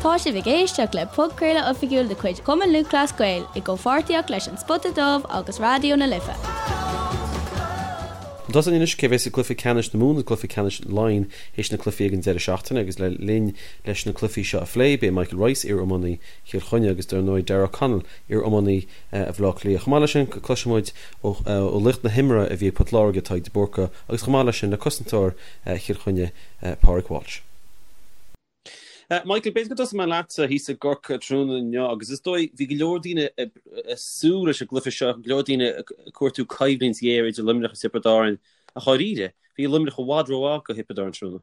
Tá sibh ag éisteacht le podchraoladh oifigiúil de chuid Chumann Lúthchleas Gael i gcomhpháirtíocht leis An Spota Dubh agus Raidió na Life. Chun tosaigh anois, cé bheas i gcluiche ceannais na Mumhan agus cluiche ceannais Laighean théis na cluichí ag an deireadh seachtaine agus le linn leis na cluichí seo a phlé, beidh Michael Rice, iar-iománaí Chill Chainnigh agus dar ndóigh Darragh O'Connell, iar-iománaí Bhaile Átha Cliath. Chomh maith leis sin, cloisfidh muid ó laoch na himeartha a bhí ag Port Láirge, Tadhg de Búrca, agus chomh maith leis sin le cosantóir Chill Chainnigh, Pádraig Walsh. Michael, b'fhéidir go dtosóidh mé leatsa thíos i gCorcaigh tráthnóna inniu agus is dóigh bhí go leor daoine ag súil leis an gcluiche seo, go leor daoine ag cuartú coimhlint ghéar idir Luimneach agus Tiobraid Árann ach dháiríre, bhí Luimneach i bhfad rómhaith do Thiobraid Árann tráthnóna.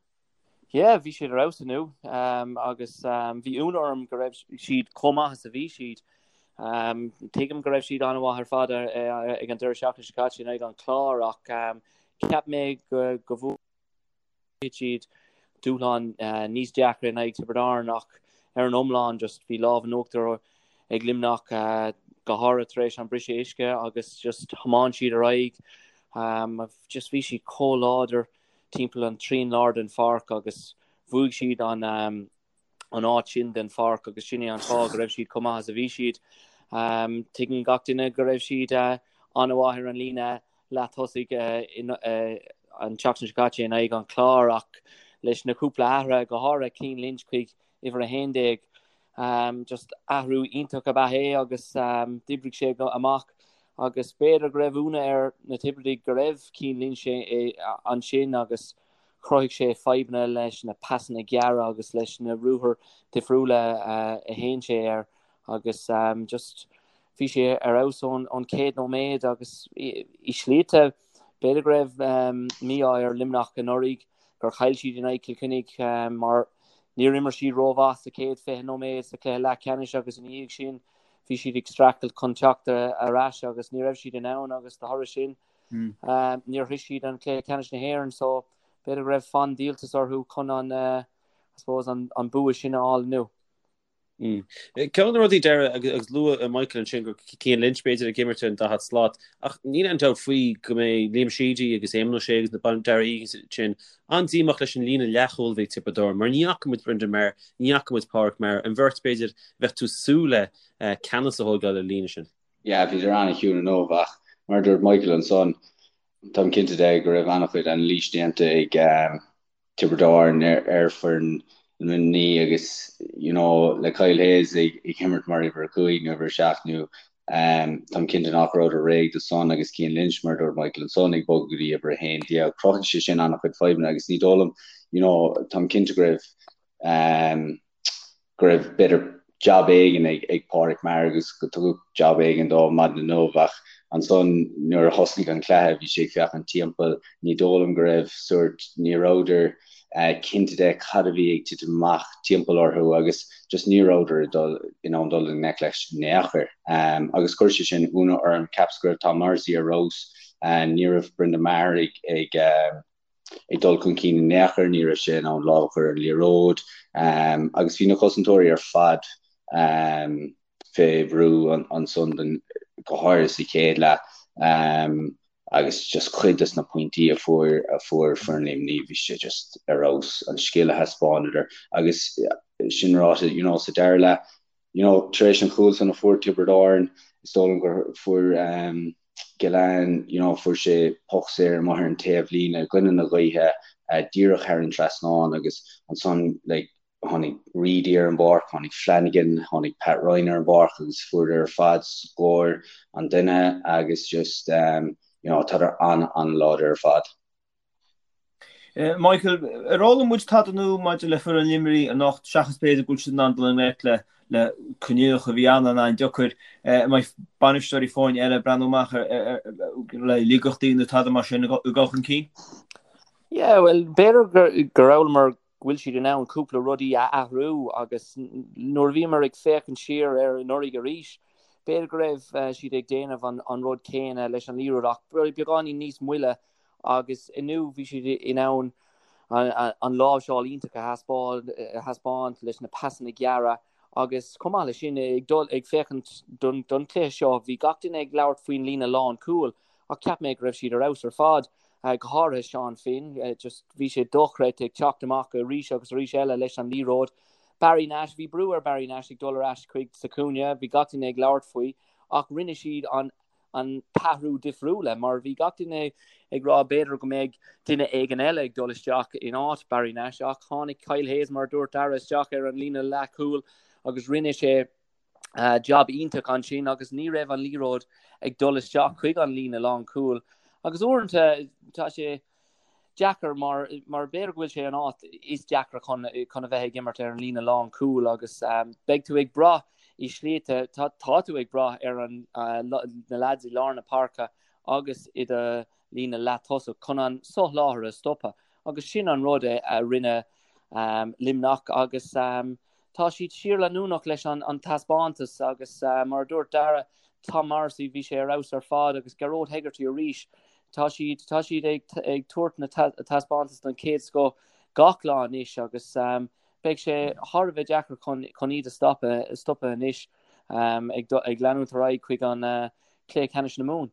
Yeah, bhí siad ar fheabhas inniu agus bhí ionadh orm go raibh siad chomh maith is a bhí siad. Tuigim go raibh siad an-mhaith ar fad ag an deireadh seachtaine seo caite in aghaidh an Chláir ach cheap mé go go siad dúshlán níos deacra in aghaidh Tiobraid Árann ach ar an iomlán just bhí lámh in uachtar ag Luimneach go háirithe tar éis an briseadh uisce agus just thiomáin siad ar aghaidh. Just bhí siad chomh láidir timpeall an trian lár den pháirc agus bhuaigh siad an an áit sin den pháirc agus sin é an fáth go raibh siad chomh maith is a bhí siad. Tuigeann gach duine go raibh siad an-mhaith ar an líne leath-thosaigh an tseachtain seo caite in aghaidh an Chláir ach leis na cúpla athruithe, go háirithe Cian Lynch chuig uimhir 11, just athrú iontach ab ea é agus d'oibrigh sé amach agus b'fhéidir go raibh ionadh ar na Tiobradaigh go raibh Cian Lynch ansin agus Chruthaigh sé fadhbanna leis na pasanna gearra agus leis na ruathair difriúla a théann sé air agus just bhí sé ar fheabhas ón chéad nóiméad agus i slite b'fhéidir go raibh mí-ádh ar Luimneach anuraidh gur chaill siad in aghaidh Chill Chainnigh mar níor imir siad rómhaith sa chéad 20 nóiméad sa chluiche leathcheannais agus ina dhiaidh sin bhí siad ag streachailt chun teacht ar ais agus ní raibh siad in ann agus de thoradh sin Níor shroich siad an cluiche ceannais na hÉireann so b'fhéidir go raibh fonn díoltais orthu chun an, I suppose, an bua sin a fháil inniu. Ceann de na rudaí Darragh agus luaigh Michael ansin go Cian Lynch b'fhéidir ag imirt ar an daichead slat ach níl aon dabht faoi go mbeidh Liam Sheedy agus Éamonn O'Shea agus na Darragh Egan sin an-díomách leis an líne leathchúil a bhí ag Tiobraid Árann mar ní fhaca muid Brendan Maher, ní fhaca muid Pádraic Maher, an bheirt b'fhéidir a bheadh tú ag súil le ceannas a thógáil ar an líne sin. Yeah, bhíodar an-chiúin inniu ach mar a dúirt Michael ansan, táim cinnte de go raibh an-chuid anailís déanta ag Tiobraid Árann ar foireann Luimnigh agus you know le Kyle Hayes ag imirt mar uimhir 5 nó uimhir 7 nó táim cinnte nach rabhadar réidh do san agus Cian Lynch mar a dúirt Michael ansan ag bogadh go dtí uimhir 11. Chruthaigh sé sin an-chuid fadhbanna agus ní dóigh liom you know táim cinnte go raibh go raibh b'fhéidir jab éigin ag Pádraic Maher agus go tugadh jab éigin dó maidin inniu ach ansan nuair a thosnaigh an cluiche bhí sé ag féachaint timpeall, ní dóigh liom go raibh sórt, ní rabhadar cinnte de cad a bhí ag titim amach timpeall orthu agus just ní rabhadar ag dul in ann dul i ngleic leis in aon chor agus chuir sé sin ionadh orm, cheapas go raibh Tom Morrissey ar fheabhas, ní raibh Brendan Maher ag ag. ag dul chun cinn in aon chor, ní raibh sé in ann lámh a chur ar an liathróid agus bhí na cosantóirí ar fad fé bhrú ansan go háirithe sa chéad leath agus just cuid des na pointí a fuair a fuair foireann Luimnigh bhí sé just ar fheabhas an scil a thaispeánadar agus sin ráite you know sa dara leath you know tar éis an chúil san a fuair Tiobraid Árann is dóigh liom gur fuair Gillane, you know, fuair sé poc saor amuigh ar an taobhlíne i gcoinne na gaoithe, díreach thar an trasnán agus ansan like tháinig Reidy ar an bpáirc, tháinig Flanagan, tháinig Pat Ryan ar an bpáirc agus fuaireadar ar fad scór an duine agus just you know tádar an-an-láidir ar fad. Michael, ar fhoghlaim muid tada nua maidir le foireann Luimnigh anocht, seachas b'fhéidir go bhfuil siad in ann dul i ngleic le le coinníollacha a bhí an-an-deacair? An mbeidh bainisteoirí foirne eile ag breathnú amach le laigeachtaí nó tada mar sin ag dul chun cinn? Yeah, well, b'fhéidir gur fhoghlaimeamar go bhfuil siad in ann cúpla rudaí a athrú agus nuair a bhíomar ag féachaint siar ar anuraidh arís, b'fhéidir go raibh siad ag déanamh an rud céanna leis an liathróid ach beagáinín níos moille agus inniu bhí siad in ann an láimhseáil iontach a thaispeáint leis na pasanna gearra agus chomh maith leis sin ag dul ag féachaint don chluiche seo bhí gach duine ag labhairt faoin líne lánchúil ach cheap mé go raibh siad ar fheabhas ar fad, go háirithe Seán Finn, just bhí sé dochreidte ag teacht amach arís agus arís eile leis an liathróid. Barry Nash, bhí brú ar Barry Nash ag dul ar ais chuig sa chúinne, bhí gach duine ag labhairt faoi ach rinne siad an an t-athrú difriúla mar bhí gach duine ag rá b'fhéidir go mbeidh duine éigin eile ag dul isteach in áit Barry Nash ach tháinig Kyle Hayes mar a dúirt Dara isteach ar an líne leathchúil agus rinne sé jab iontach ansin agus ní raibh an liathróid ag dul isteach chuig an líne lánchúil agus uaireanta tá sé deacair mar mar b'fhéidir go bhfuil sé an áit is deacra chun chun a bheith ag imirt ar an líne lánchúil agus beidh tú ag brath i slite tá tá tú ag brath ar an na lads i lár na páirce agus i do líne leath-tosach chun an soláthar a stopadh agus sin an rud é a rinne Luimneach agus Tá siad síorleanúnach leis an taispeántas agus mar a dúirt Dara, Tom Morrissey, bhí sé ar fheabhas ar fad agus Gearóid Hegarty arís. Tá siad, tá siad ag ag tabhairt na taispeántas den chéad scoth gach lá anois agus beidh sé thar a bheith deacair chun chun iad a stopadh, stopadh anois ag ag leanúint ar aghaidh chuig an cluiche ceannais na Mumhan.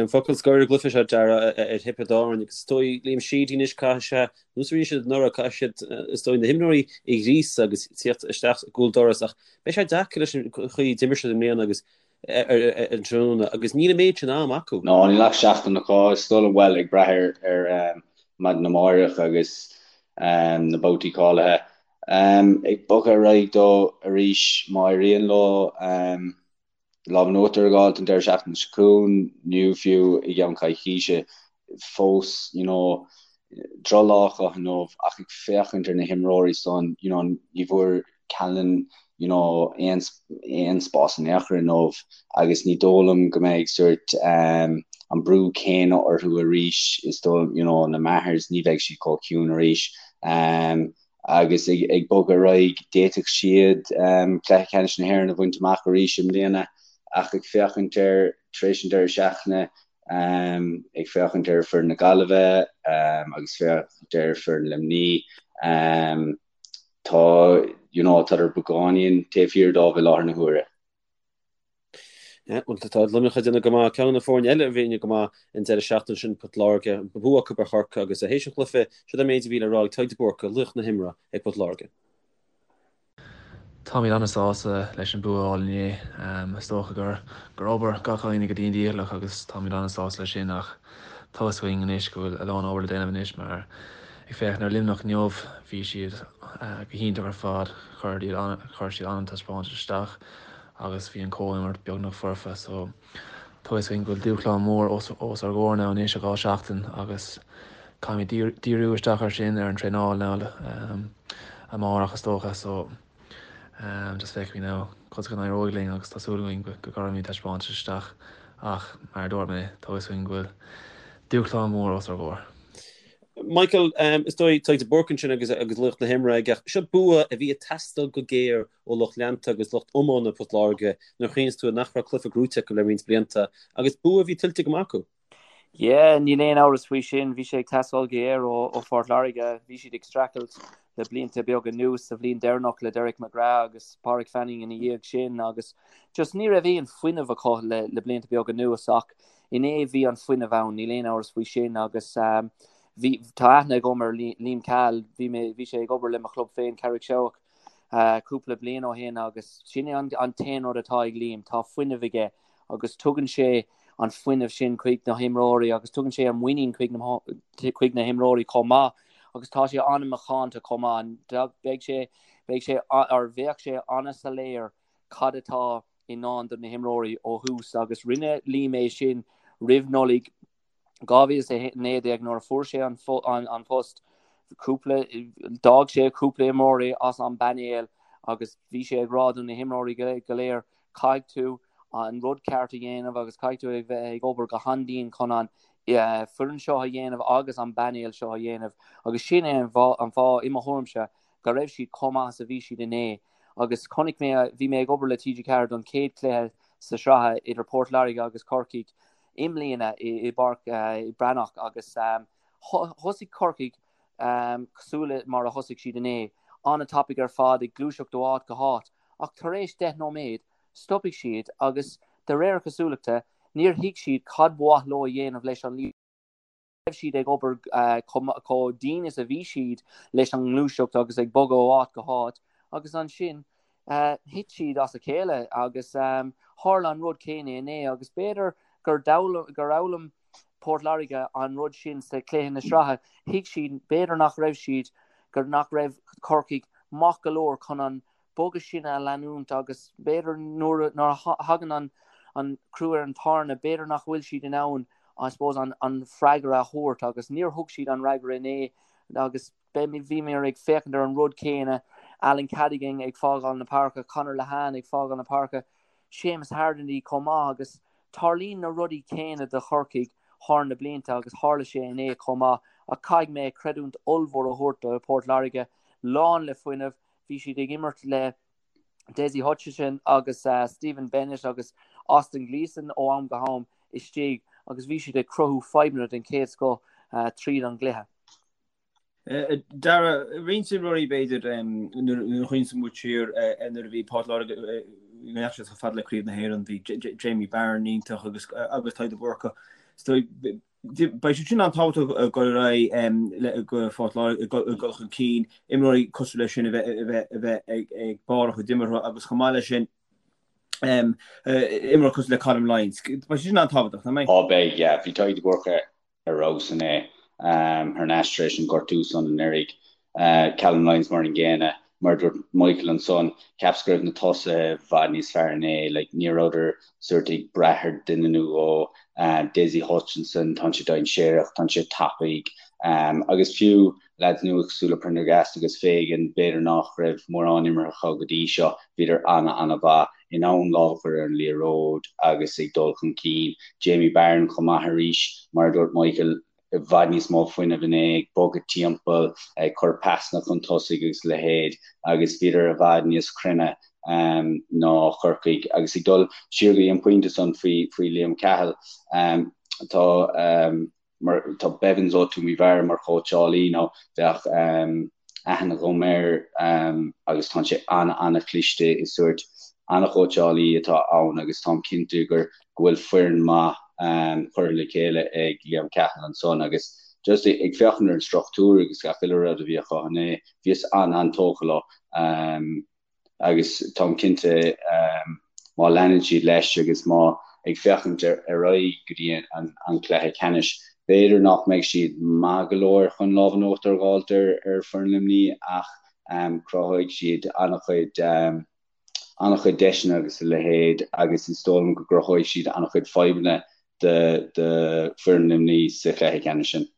Focal scoir ar an gcluiche seo, Dara, ar Thiobraid Árann agus is dóigh Liam Sheedy anois caithfidh sé, nós a rinne siad anuraidh, caithfidh siad is dóigh na himreoirí a ghríosadh agus tíocht isteach i gcúl doras ach beidh sé deacair leis an chaoi a d'imir siad i mbliana agus ar an tráthnóna agus níl an méid sin am acu. No, níl ach seachtain acu, is dóigh liom, bhuel, ag brath ar ar maidin amárach agus na babhtaí cáilithe. Ag bogadh ar aghaidh dó arís má éiríonn leo. lámh in uachtar a fháilt an deireadh seachtaine seo chugainn nó fiú i gceann coicíse fós you know drochlá acu inniu ach ag féachaint ar na himreoirí san you know ní bhfuair Callanan you know aon aon spás in aon chor inniu agus ní dóigh liom go mbeidh sórt um, an brú céanna orthu arís is dóigh you know na Mahers ní bheidh siad chomh ciúin arís um, agus ag bogadh ar aghaidh, d'fhéadfadh siad cluiche ceannais na hÉireann a bhaint amach arís i mbliana ach ag féachaint ar tar éis an deireadh seachtaine, ag féachaint ar foireann na Gaillimhe agus féachaint ar foireann Luimní, tá you know tádar beagáinín taobh thiar dóibh i láthair na huaire. Bhuel, tá Luimneach ag déanamh go maith. Ceann de na foirne eile a bhí go maith an deireadh seachtaine sin, Port Láirge, bua acu ar Chorcaigh agus théis an chluiche, siod an méid a bhí le rá ag Tadhg de Búrca, laoch na himeartha ag Port Láirge. Táimid an-sásta leis an bua a fháil inné. Is dócha gur gur obair gach éinne go dian dícheallach agus táimid an-sásta leis sin ach tá fhios againn anois go bhfuil a lán obair le déanamh anois mar ag féachaint ar Luimneach inniu bhí siad go hiontach ar fad, chuir siad an-taispeántas isteach. agus bhí an chomhimirt beagnach foirfe so tá fhios againn go bhfuil dúshlán mór os ár gcomhair now anois i 2 seachtain agus caithfimid díriú isteach ar sin ar an traenáil now amárach is dócha so just feicfimid now conas go n-éireoidh linn agus tá súil againn go gcuirfimid taispeántas isteach ach mar a dúirt mé tá fhios againn go bhfuil dúshlán mór os ár gcomhair. Michael, is dóigh Tadhg de Búrca ansin agus agus laoch na himeartha aige. Seo bua a bhí ag teastáil go géar ó lucht leanta agus lucht iomána Port Láirge nuair a chuimhníonns tú nach raibh cluiche gnóite acu le roinnt blianta agus bua a bhí tuillte go maith acu. Yeah, níl aon amhras faoi sin. Bhí sé ag teastáil go géar ó Phort Láirge. Bhí siad ag streachailt le blianta beaga anuas, sa bhliain deireanach le Derek McGrath agus Pádraig Fanning ina dhiaidh sin agus just ní raibh aon fuinneamh acu le le blianta beaga anuas ach inné bhí an fuinneamh ann, níl aon amhras faoi sin agus bhí tá aithne agam ar Liam Cahill, bhí mé bhí sé ag obair le mo chlub féin Carraig Seabhac cúpla bliain ó shin agus sin é an t-aon rud atá ag Liam, tá fuinneamh aige agus tugann sé an fuinneamh sin chuig na himreoirí agus tugann sé an muinín chuig na chuig na himreoirí chomh maith agus tá sé an-mhacánta chomh maith. Beidh sé beidh sé or bheadh sé an-soiléir cad atá i ndán do na himreoirí ó thús agus rinne Liam é sin roimh Nollaig 2019 nuair a fuair sé an post, cúpla, d'fhág sé cúpla imreoirí as an bpainéal agus bhí sé ag rá do na himreoirí go léir caithfidh tú an rud ceart a dhéanamh agus caithfidh tú a bheith ag obair go han-dian chun an foireann seo a dhéanamh agus an painéal seo a dhéanamh agus sin é an fáth i mo thuairimse go raibh siad chomh maith is a bhí siad inné agus chonaic mé, bhí mé ag obair le TG4 don chéad chluiche sa sraith idir Port Láirge agus Corcaigh i mbliana i bPáirc Breathnach agus thosaigh Corcaigh cosúil le mar a thosaigh siad inné, an-tapaidh ar fad, ag gluaiseacht ó áit go háit ach tar éis 10 nóiméad stopfaidh siad agus de réir cosúlachta níor thuig siad cad ba mhaith leo a dhéanamh leis an. Raibh siad ag obair chomh dian is a bhí siad leis an ngluaiseacht agus ag bogadh ó áit go háit agus ansin thit siad as a chéile agus tharla an rud céanna inné agus b'fhéidir gur fhoghlaim Port Láirge an rud sin sa chluiche na sraithe. Thuig siad b'fhéidir nach raibh siad gur nach raibh Corcaigh maith go leor chun an bogadh sin a leanúint agus b'fhéidir nuair a thagann an crú ar an tairne, b'fhéidir nach bhfuil siad in ann I suppose an freagra a thabhairt agus níor thug siad an fhreagra inné agus bhíomar ag féachaint ar an rud céanna, Alan Cadogan ag fágáil na páirce, Conor Lehane ag fágáil na páirce, Seamus Harnedy chomh maith agus tarlaíonn na rudaí céanna do Chorcaigh thar na blianta agus tharla sé inné chomh maith ach caithfidh mé creidiúint ollmhór a thabhairt do Port Láirge, lán le fuinneamh, Bhí siad ag imirt le Dessie Hutchinson agus Stephen Bennett agus Austin Gleeson ó am go ham istigh agus bhí siad ag cruthú fadhbanna den chéad scoth tríd an gcluiche. Dara, roinnt imreoirí b'fhéidir nuair a chuimhníonn muid siar nuair a bhí Port Láirge go ndeachaigh siad chomh fada le Craobh na hÉireann, bhí Jamie Barron iontach agus agus Tadhg de Búrca. Beidh siad sin an-tábhachtach ag dul ar aghaidh le go Phort Láirge ag dul chun cinn, imreoirí cosúil leis sin a bheith a bheith ag barr a chuid imeartha agus chomh maith leis sin imreoir cosúil le Colm Lyons. Beidh siad sin an-tábhachtach, nach mbeidh? Á beidh, yeah. Bhí Tadhg de Búrca ar fheabhas inné thar n-ais tar éis an gortú san anuraidh. Callum Lyons mar an gcéanna. Mar a dúirt Michael ansan, cheapas go raibh na tosaithe i bhfad níos fearr inné. Like, ní rabhadar sórt ag brath ar duine nó dhó. Dessie Hutchinson, tá sé dainséarach, tá sé tapaidh. Agus fiú lads nua cosúil le Prendergast agus Fagan, b'fhéidir nach raibh mórán imeartha acu go dtí seo, bhíodar ana-ana-mhaith, in ann lámh a chur ar an liathróid agus ag dul chun cinn. Jamie Barron chomh maith arís, mar a dúirt Michael, i bhfad níos mó fuinnimh inné, ag bogadh timpeall, ag cur pasanna chun tosaigh agus a leithéid agus bhíodar i bhfad níos cruinne ná Corcaigh. Agus ag dul siar go dtí an pointe san faoi faoi Liam Cahill, tá mar tá Bevans ó Toomevara mar chóitseálaí nó bheadh aithne agam air agus tá sé an-an-chliste is sórt an-chóitseálaí atá ann agus táim cinnte gur go bhfuil foireann maith curtha le chéile ag Liam Cahill ansan agus just ag féachaint ar an struchtúr agus gach uile rud a bhí acu inné, bhíos an-an-tógtha leo agus táim cinnte má leanann siad leis agus má ag féachaint ar aghaidh go dtí an cluiche ceannais, b'fhéidir nach mbeidh siad maith go leor chun lámh in uachtar a dh'fháilt ar foireann Luimnigh ach cruthóidh siad an-chuid an-chuid deiseanna agus a leithéid agus is dóigh liom go gcruthóidh siad an-chuid fadhbanna do foireann Luimnigh sa chluiche ceannais sin.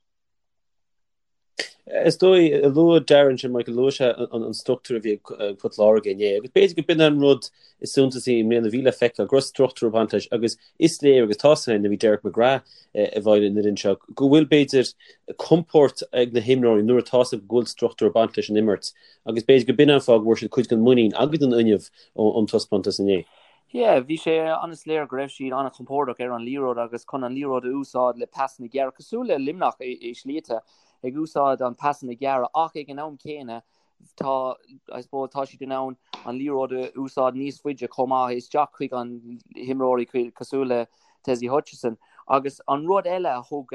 Is dóigh, luaigh Darren sin, Michael, luaigh sé an struchtúr a bhí ag Port Láirge inné agus b'fhéidir go b'in an rud is suntasaí i mbliana a bhí le feiceáil, go raibh struchtúr ag baint leis agus is léir agus tá sé nuair a bhí Derek McGrath i bhfeighil an fhoireann seo go bhfuil b'fhéidir compord ag na himreoirí nuair atá 's acu go bhfuil struchtúr ag baint leis an imirt Agus b'fhéidir go b'in an fáth go bhfuair siad cuid den mhuinín agus den fhuinneamh ón taispeántas inné. Yeah, bhí sé an-soiléir go raibh siad an-chompordach ar an liathróid agus chun an liathróid a úsáid le pasanna gearra, cosúil le Luimneach i slite, ag úsáid an pasanna gearra ach ag an am céanna tá, I suppose, tá siad in ann an liathróid a úsáid níos faide chomh maith isteach chuig an himreoirí cosúil le Dessie Hutchinson. Agus an rud eile a thug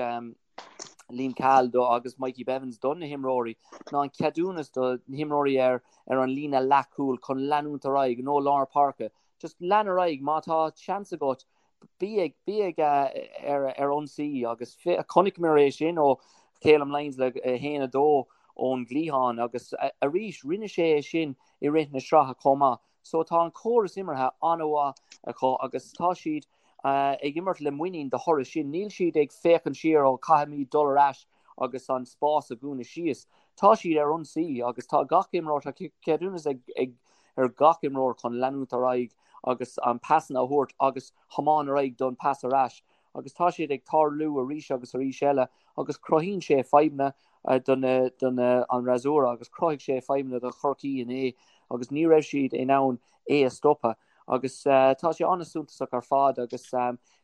Liam Cahill do agus Mikey Bevans do na himreoirí ná an ceadúnas do na himreoirí ar ar an líne leathchúil chun leanúint ar aghaidh nó lár páirce. Just lean ar aghaidh má tá seans agat bí ag bí ag ar ar ionsaí agus chonaiceamar é sin ó Calum Lyons le 1 2 ón gcliathán agus arís rinne sé é sin i rith na sraithe chomh maith. So tá an córas imeartha an-mhaith acu agus tá siad ag imirt le muinín de thoradh sin. Níl siad ag féachaint siar, ó caithfimid dul ar ais agus an spás a dhúnadh síos. Tá siad ar ionsaí agus tá gach imreoir, tá ceadúnas ag ag ar gach imreoir chun leanúint ar aghaidh agus an pasanna a thabhairt agus thiomáin ar aghaidh don pas ar ais agus tá siad ag tarlú arís agus arís eile agus cruthaíonn sé fadhbanna do na do na an fhreasúra agus chruthaigh sé fadhbanna do Chorcaí inné agus ní raibh siad in ann é a stopadh. Agus tá sé an-suntasach ar fad agus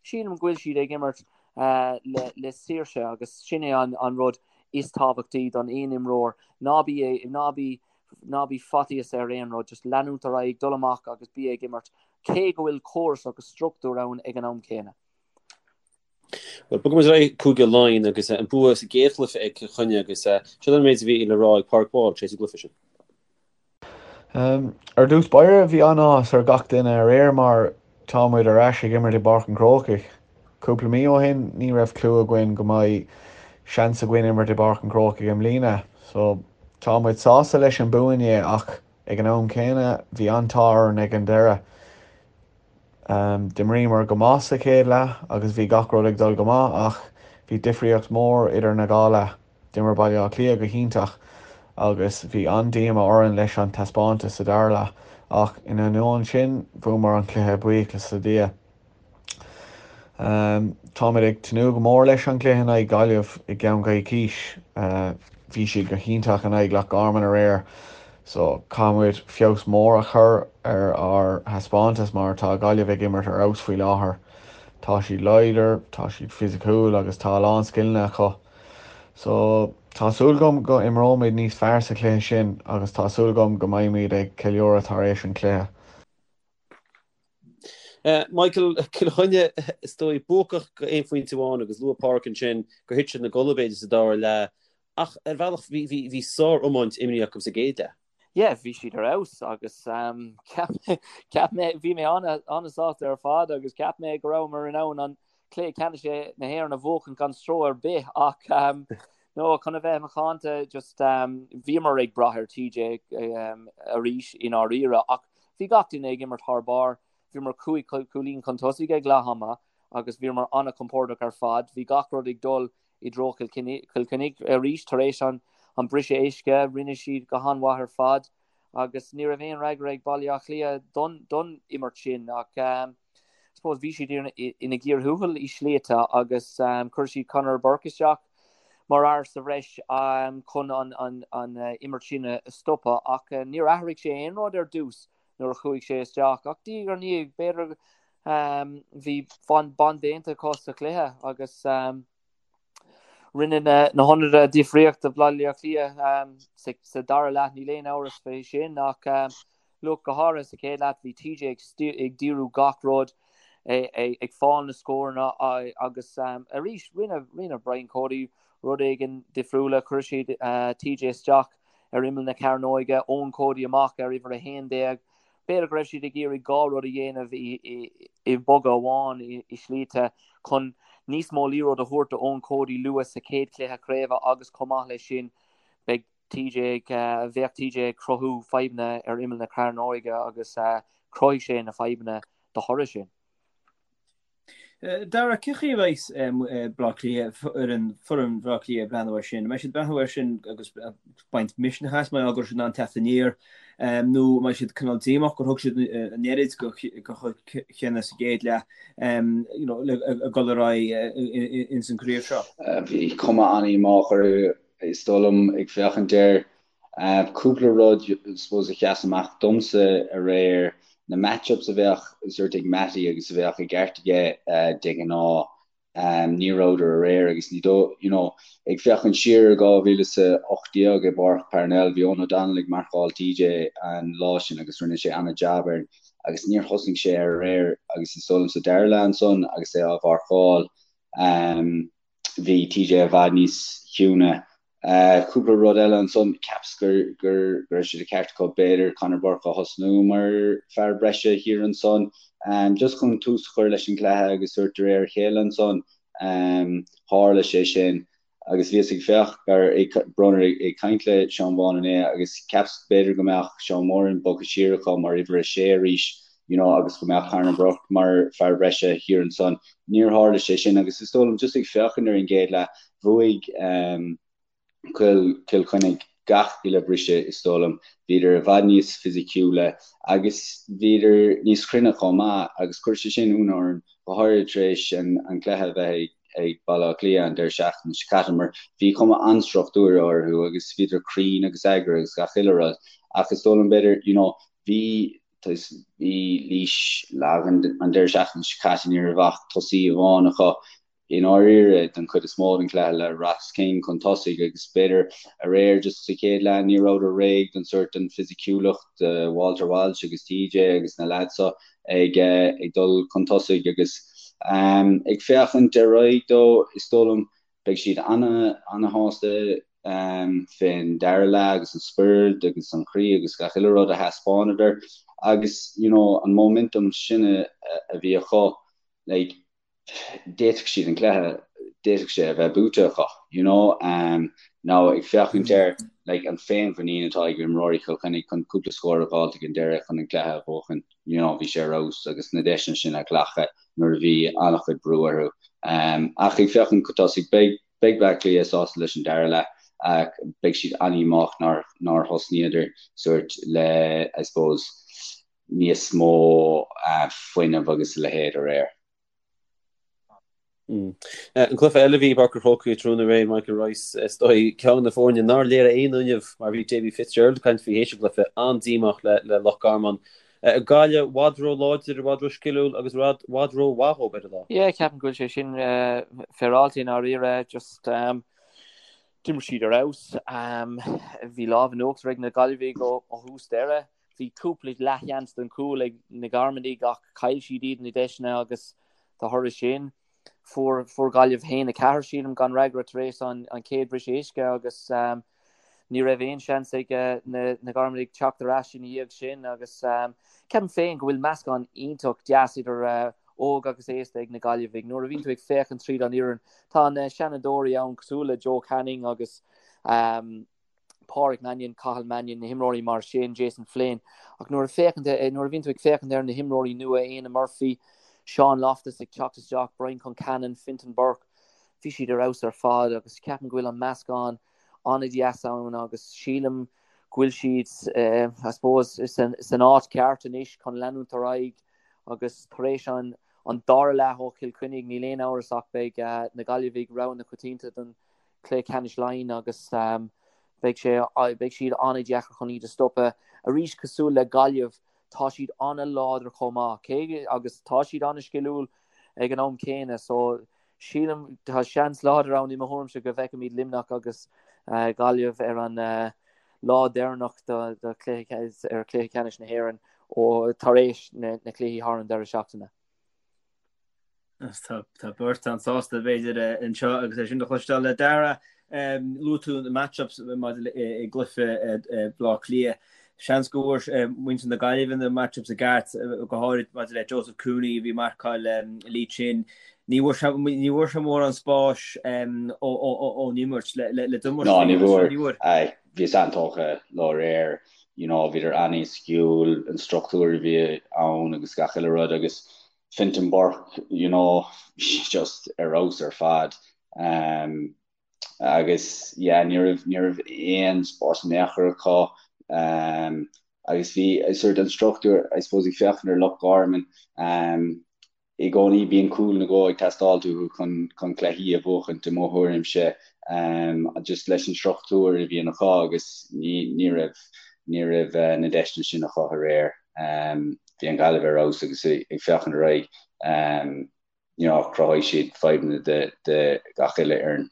sílim go bhfuil siad ag imirt le saoirse agus sin é an rud is tábhachtaí don aon imreoir. Ná bí, ná bí, ná bí faitíos ar aon rud, just leanúint ar aghaidh, dul amach agus bí ag imirt, cé go bhfuil córas agus struchtúr ann ag an am céanna. Bhuel, bogfaidh muid ar aghaidh Cúige Laighean agus an bua sa gcéad chluiche ag Cill Chainnigh agus seo an méid a bhí le rá ag Pádraig Walsh tar éis an gcluiche sin. Ar dtús báire, bhí an-áthas ar gach duine aréir mar tá muid ar ais ag imirt i bPáirc an Chrócaigh. Cúpla mí ó shin, ní raibh clue againn go mbeidh seans againn imirt i bPáirc an Chrócaigh i mbliana. So, tá muid sásta leis an bua inné ach ag an am céanna, bhí an-t-ádh orainn ag an deireadh. D'imríomar go maith sa chéad leath agus bhí gach rud ag dul go maith ach bhí difríocht mór idir na dhá leath. D'imir Baile Átha Cliath go hiontach agus bhí an-díoma orainn leis an taispeántas sa dara leath ach in ainneoin sin bhuamar an cluiche buíochas le Dia. Táimid ag tnúth go mór leis an gcluiche in aghaidh Gaillimh i gceann coicís. Bhí siad go hiontach in aghaidh Loch Garman aréir so caithfimid feabhas mór a chur ar ár thaispeántas mar tá Gaillimh ag imirt ar fheabhas faoi láthair. Tá siad láidir, tá siad fisiciúil agus tá a lán scileanna acu. So tá súil agam go imreoimid níos fearr sa chluiche sin agus tá súil agam go mbeimid ag ceiliúradh tar éis an chluiche. Michael, Cill Chainnigh, is dóigh, buacach go aon phointe amháin agus luaigh Pádraic ansin gur thit siad ina gcodladh b'fhéidir sa dara leath ach ar bhealach bhí, bhí, bhí sár-iomáint imrithe acu sa gcéad leath. Yeah, bhí siad ar fheabhas agus cheap mé, cheap mé, bhí mé an-sásta ar fad agus cheap mé go rabhamar in ann an cluiche ceannais na hÉireann a bhuachan gan stró ar bith ach no, chun a bheith macánta just bhíomar ag brath ar TJ arís i ndáiríre ach Bhí gach duine ag imirt thar barr. Bhíomar 5 cúilín chun tosaigh ag leath ama agus bhíomar an-chompordach ar fad. Bhí gach rud ag dul i dtreo Chill Chainnigh arís tar éis an briseadh uisce. Rinne siad go han-mhaith ar fad agus ní raibh aon fhreagra ag Baile Átha Cliath don imirt sin ach I suppose bhí siad ina gcíor thuathail i slite agus chuir siad Conor Burke isteach mar fhear sa bhreis chun an imirt sin a stopadh ach níor athraigh sé aon rud ar dtús nuair a chuaigh sé isteach ach diaidh ar ndiaidh b'fhéidir bhí bonn déanta acu sa chluiche agus rinne na hionadaithe difríocht do Bhaile Átha Cliath sa dara leath níl aon amhras faoi sin ach Look, go háirithe sa chéad leath, bhí TJ ag díriú gach rud, ag fáil na scóranna agus arís rinne rinne Brian Cody rud éigin difriúla, chuir siad TJ isteach ar imeall na cearnóige, Eoin Cody amach ar uimhir 11. B'fhéidir go raibh siad ag iarraidh dhá rud a dhéanamh i bogadh amháin i slite chun níos mó liathróid a thabhairt do Eoin Cody luath sa chéad chluiche craoibhe agus chomh maith leis sin beidh TJ, bheadh TJ ag cruthú fadhbanna ar imeall na cearnóige agus chruthaigh sé na fadhbanna de thoradh sin. Dara, cén chaoi a bheidh Baile Átha Cliath, foireann Bhaile Átha Cliath ag breathnú air sin? An mbeidh siad ag breathnú air sin agus baint misneach as mar go raibh siad in ann teacht aniar nó an mbeidh siad cineál díomách gur thug siad an oiread go Chill Chainnigh sa gcéad leath le dul ar aghaidh ins an gcraobh seo? Bhí cuma an-dhíomách orthu Is dóigh liom, ag féachaint air, cúpla rud suppose a sheas amach domsa aréir, na match-ups a bheadh sort ag Mattie agus a bheadh i gceart aige de ghnáth, ní rabhadar aréir agus ní dóigh, you know, ag féachaint siar ar 2018 i bPáirc Parnell, bhí Eoghan O'Donnell ag marcáil TJ an lá sin agus rinne sé an-jab air agus níor thosnaigh sé air aréir agus is dóigh liom sa dara leath ansan agus é á mharcáil, Bhí TJ i bhfad níos ciúine. Cúpla rud eile ansan, cheapas gur go raibh sé de cheart acu b'fhéidir Conor Burke a thosnú mar fear breise thiar ansan, just chun tús a chur leis an gcluiche agus sórt de réir a chéile ansan tharla sé sin. Agus bhíos ag féach ar Bronner ag caint le Seán Vaughan inné agus cheapas b'fhéidir go mbeadh Seán Moran bogtha siar acu mar uimhir a sé arís you know agus go mbeadh Conor Burke mar fear breise thiar ansan. Níor tharla sé sin agus is dóigh liom just ag féachaint ar an gcéad leath, bhuaigh um, Cill Cill Chainnigh gach uile briseadh is dóigh liom. Bhíodar i bhfad níos fisiciúla agus bhíodar níos cruinne chomh maith agus chuir sé sin ionadh orm, go háirithe tar éis an, an cluiche a bheith ag ag Baile Átha Cliath an deireadh seachtaine seo caite mar bhí cuma an-struchtúrtha orthu agus bhíodar cruinn agus eagraithe agus gach uile rud ach is dóigh liom b'fhéidir you know bhí Bhí Laois lag an deireadh seachtaine seo caite, ní raibh ach tosaí amháin acu i ndáiríre don chuid is mó den chluiche le Ross King chun tosaigh agus b'fhéidir aréir just sa chéad leath ní rabhadar réidh don sórt den fisiciúlacht Walter Walsh agus TJ agus na leaids seo ag ag dul chun tosaigh agus. Ag féachaint ar aghaidh dó, is dóigh liom, beidh siad ana-shásta fén dara leath agus an spiorad agus an croí agus gach uile rud a thaispeánadar agus you know an momentum sin a bhí acu like d'fhéadfadh siad an cluiche, d'fhéadfadh sé a bheith buaite acu, you know. Now ag féachaint ar like an féinmhuinín atá ag imreoirí Chill Chainnigh chun cúpla scór a dh'fháilt ag an deireadh chun an cluiche a bhuachan, you know, bhí sé ar fheabhas agus na deiseanna sin a ghlacadh nuair a bhí an-chuid brú orthu. Ach ag féachaint chun tosaigh, beidh beidh Bleá Cliath sásta leis an dara leath ach beidh siad an-dhíomách nár nár thosnaíodar sórt le, I suppose, níos mó fuinnimh agus a leithéid aréir. An cluiche eile a bhí i bPáirc an Chrócaigh tráthnóna aréir, Michael Rice, is dóigh, ceann de na foirne nár léirigh aon fhuinneamh mar bhí Davy Fitzgerald ag caint faoi théis an chluiche, an-díomách le Loch Garman. Gaillimh i bhfad ró-láidir, i bhfad ró-sciliúil agus i bhfad ró-mhaith dhóibh ar an lá. Yeah, ceapaim go bhfuil sé sin féaráilte i ndáiríre. Just d'imir siad ar fheabhas. Bhí lámh in uachtar ag na Gaillimhigh ó thús deireadh. Bhí cúpla leathsheans don chúl ag na Garmanaigh ach chaill siad iad na deiseanna agus de thoradh sin fuair fuair Gaillimh 1-4 sílim gan fhreagra tar éis an an chéad briseadh uisce agus ní raibh aon seans ag na na Garmanaigh teacht ar ais ina dhiaidh sin agus ceapaim féin go bhfuil meascán iontach deas idir óg agus aosta ag na Gaillimhigh. Nuair a bhíonn tú ag féachaint tríd an fhoireann tá na seanadóirí ann cosúil le Joe Canning agus Pádraic Mannion, Cathal Mannion, na himreoirí mar sin, Jason Flynn. Ach nuair a féachann, nuair a bhíonn tú ag féachaint ar na himreoirí nua, Éanna Murphy, Sean Loftus ag teacht isteach, Brian Concannon, Fintan Burke, bhí siad ar fheabhas ar fad agus ceapaim go bhfuil an meascán an-deas ann agus sílim go bhfuil siad, I suppose, san áit ceart anois chun leanúint ar aghaidh agus tar éis an an dara leath ó Chill Chainnigh níl aon amhras ach beidh na Gaillimhigh rogha na coitianta don Cluiche Ceannais Laighean agus beidh sé, beidh siad an-deacair chun iad a stopadh. Arís, cosúil le Gaillimh, tá siad an-láidir chomh maith, cé agus tá siad an-sciliúil ag an am céanna. So, sílim, tá seans láidir ann i mo thuairimse go bhfeicfimid Luimneach agus Gaillimh ar an lá deireanach do chluiche, ar Chluiche Ceannais na hÉireann ó tar éis na cluichí thar an deireadh seachtaine. Tá beirt an-sásta b'fhéidir anseo agus é sin a chloisteáil. A Dhara, luaigh tú na match-ups maidir le i gcluiche Bhaile Átha Cliath. Seans go bhfuair muintir na Gaillimhe na match-ups i gceart, go háirid maidir le Joseph Cooney a bhí ag marcáil Lee Chin. Ní bhfuair sé mórán spáis ón imirt le d'imirt. Ná ní bhfuair. Bhí sé an-tógtha leo aréir. You know, bhíodar an-sciúil, an struchtúr a bhí ann agus gach uile rud agus Fintan Burke, you know, just ar fheabhas ar fad. Um, agus yeah, ní raibh ní raibh aon spás in aon chor acu. Um, agus bhí sort an struchtúr, I suppose, ag féachaint ar Loch Garman, um, i gcónaí bíonn cúl nó dhó ag teastáil uathu chun chun cluichí a bhuachaint i mo thuairimse, um, just leis an struchtúr a bhíonn acu agus ní ní raibh ní raibh uh, na deiseanna sin acu aréir. Um, bhí an Ghaillimh ar fheabhas agus ag féachaint ar aghaidh, you know, chruthaigh siad fadhbanna do gach uile fhoireann.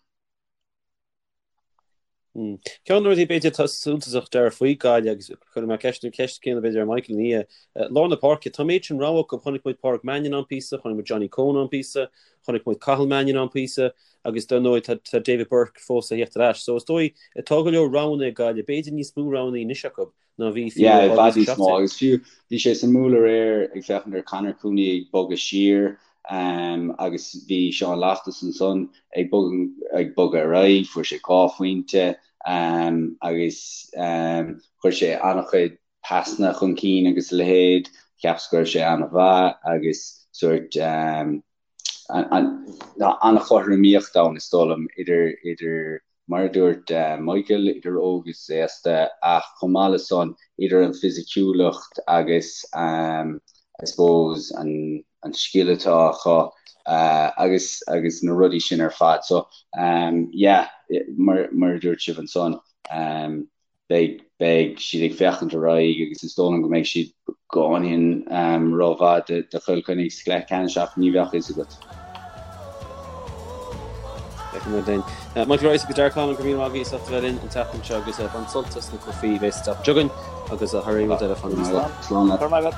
Ceann de na rudaí b'fhéidir atá suntasach Dara faoi Gaillimh agus cuirfidh mé ceist an ceist céanna b'fhéidir ar Michael ina dhiaidh, lár na páirce, tá an méid sin rogha acu, chonaic muid Pádraig Mannion ann píosa, chonaic muid Johnny Coen ann píosa, chonaic muid Cathal Mannion ann píosa agus dar ndóigh tá David Burke fós a theacht ar ais. So is dóigh tá go leor roghanna ag Gaillimh, b'fhéidir níos mó roghanna anois acu ná bhí fiú Yeah, i bhfad níos mó agus fiú bhí sé suimiúil aréir ag féachaint ar Conor Cooney ag bogadh siar um, agus bhí Sean Loftus ansan ag bogadh, ag bogadh ar aghaidh, fuair sé 2 phointe um, agus um, chuir sé an-chuid pasanna chun cinn agus a leithéid, cheapas go raibh sé an-mhaith agus sórt um, an-chothromaíocht ann, is dóigh liom, idir, idir, mar a dúirt Michael, idir óg is aosta, ach chomh maith le san, idir an fisiciúlacht agus, I suppose, an, an scil atá acu agus, agus na rudaí sin ar fad. So, yeah, mar, mar a dúirt sibh ansan, beidh, beidh siad ag féachaint ar aghaidh agus is dóigh liom go mbeidh siad beagáinín rómhaith do Chill Chainnigh sa gcluiche ceannais ach ní bheadh fhios agat. Feicfidh muid linn. Michael Rice agus Darragh Conlon, go raibh míle maith agaibh as ucht a bheith linn an tseachtain seo agus bain sult as na cluichí a bheas an tseachtain seo chugainn agus thar aon rud eile, fanaigí slán. Slán leat.